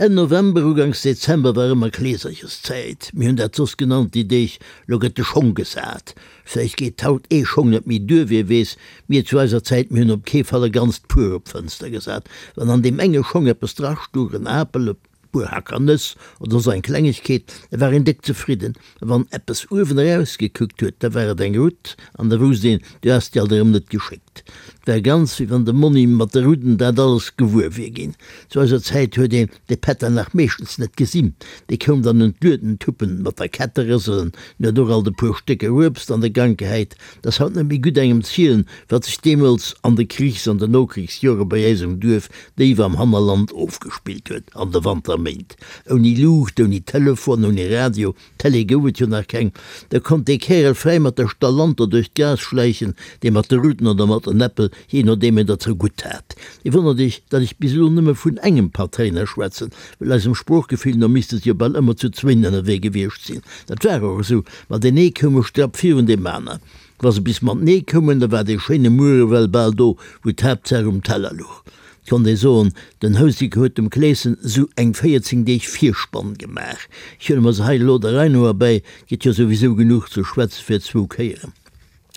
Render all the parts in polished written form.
Enn November, uganks Dezember war ëmmer Kleesercherszäit. Mir hunn dat soss genannt déi Deeg, lo gëtt de Schong gesat. Vläicht geet haut ee Schong net méi duer, wie weess. Mir zu eiser Zäit, mir hunn op kee Fall e ganzt Puer op d'Fënster gesat. Wann an deem enge Schong eppes drastuch, en Apel, e puer Hacker Nëss oder soss eng Klengegkeet, da war een déck zefridden. A wann eppes uewen erausgekuckt huet, da war et eng Rutt an da wousst een, du has déi alt erëm net geschéckt. Et war ganz, wéi wann de Monni mat de Rudden dat alles gewuer wier ginn. Zu eiser Zäit huet een de Pätter nach meeschtens net gesinn. Dee koum dann un d'Lueden tuppen, mat der Kette rëselen, en huet och alt e puer Stécker Uebst an de Gank gehäit. 't ass haut net méi gutt engem zielen, wat sech deemools an de Krichs an de Nokrichsjore bei äis um Duerf déif am Hannerland ofgespillt huet an de Wanterméint. Ouni Luucht, ouni Telefon, ouni Radio, Télé gouf et jo nach keng, da konnt dee Kärel fräi mat der Stallanter duerch d'Gaass schläichen, dee mat de Ruten oder mat den Äppel, jee nodeem en der zergutt hat. Dir wonnert iech, datt ech bis elo nëmme vun engem Patréiner schwätzen, well eisem Sproochgefill no misste se jo bal ëmmer zu zwéin ënnerwee gewiescht sinn. Dat war och esou, ma deen ee koum e Strapp virun deem aner. Wa se bis matenee koumen, da war dee schéine Muer ewell bal do, wou d'Haaptsaach um Teller luch. Et konnt ee soen, den Houseker huet dem Kleeschen esou eng 14 Deeg Virspann gemaach. Ech huele mer se hei elo der Rei no erbäi, 't gëtt jo souwisou genuch ze schwätze fir zwou Kéieren.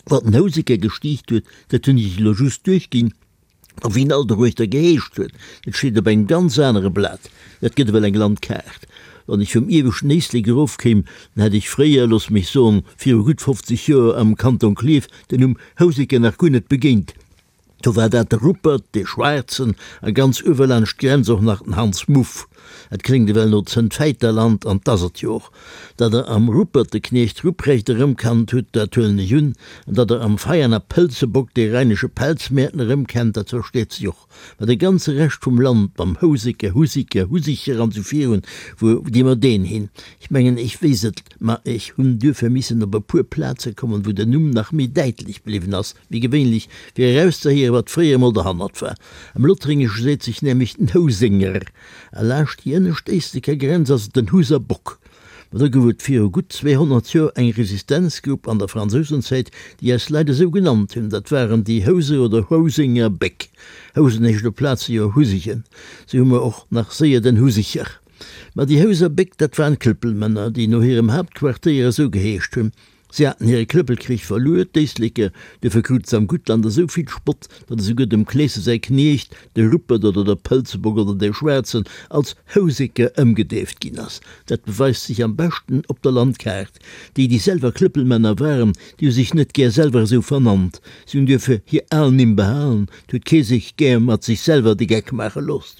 Wat den Houseker gestiicht huet, dat hunn ech elo just duerchginn. A wéi en all doruechter geheescht huet, dat steet op engem ganz anere Blat. Dat gëtt ewell eng Landkaart. Wann ech vum ieweschten Éislek erofkéim, dann hätt ech fréier, looss mech soen, viru gutt 50 Joer am Kanton Klierf den Numm Houseker nach guer net begéint. Do war dat de Ruppert, dee Schwaarzen, a ganz uewe laanscht d'Grenz och nach den Hans Muff. Et kléngt ewell no Zëntfäiterland, an 't ass et jo och. Datt Der am Ruppert de Kniecht Ruprecht erëmkannt hutt, dat huelen ech un, an datt Der am Veianer Pëlzebock dee rheinesche Pelzmäerten erëmkennt, dat versteet sech och. Mä de ganze Rescht vum Land, mam Houseker, Husiker, Husicher an sou virun, wou gi mer deen hin? Ech mengen, ech weess et, ma ech hunn duerfir missen op e puer Plaze kommen, wou den Numm nach méi däitlech bliwwen ass wéi gewéinlech, fir erauszehéieren, wat fréier emol derhannert war. Am Lothréngesche seet sech nämlech den Housénger, a laascht déi ënnescht Éisleker Grenz ass et den Huser Bock. Ma do gouf et viru gutt 200 Joer eng Resistenzgrupp an der Fransousenzäit, déi eis Leit esou genannt hunn. Dat waren déi Houser oder Housenger Béck. Housen heescht op Plaze jo Husegen. Sou hu mer och nach séier den Husicher. Ma déi Houser Béck, dat waren Klëppelmänner, déi no hirem Haaptquartéier esou geheescht hunn. Si haten hire Klëppelkrich verluer, d'Éisleker, duerfir krute se am Guttland esou vill Spott, datt esouguer dem Kleese säi Kniecht, de Ruppert oder der Pëlzebock oder dee Schwaarzen, als Houseker ëmgedeeft ginn ass. Dat beweist sech am beschten op der Landkaart. Déi, déi selwer Klëppelmänner waren, déi hu sech net gär selwer esou vernannt. Si hunn duerfir hir al Nimm behalen, 't huet kee sech gär mat sech selwer de Geck maache looss.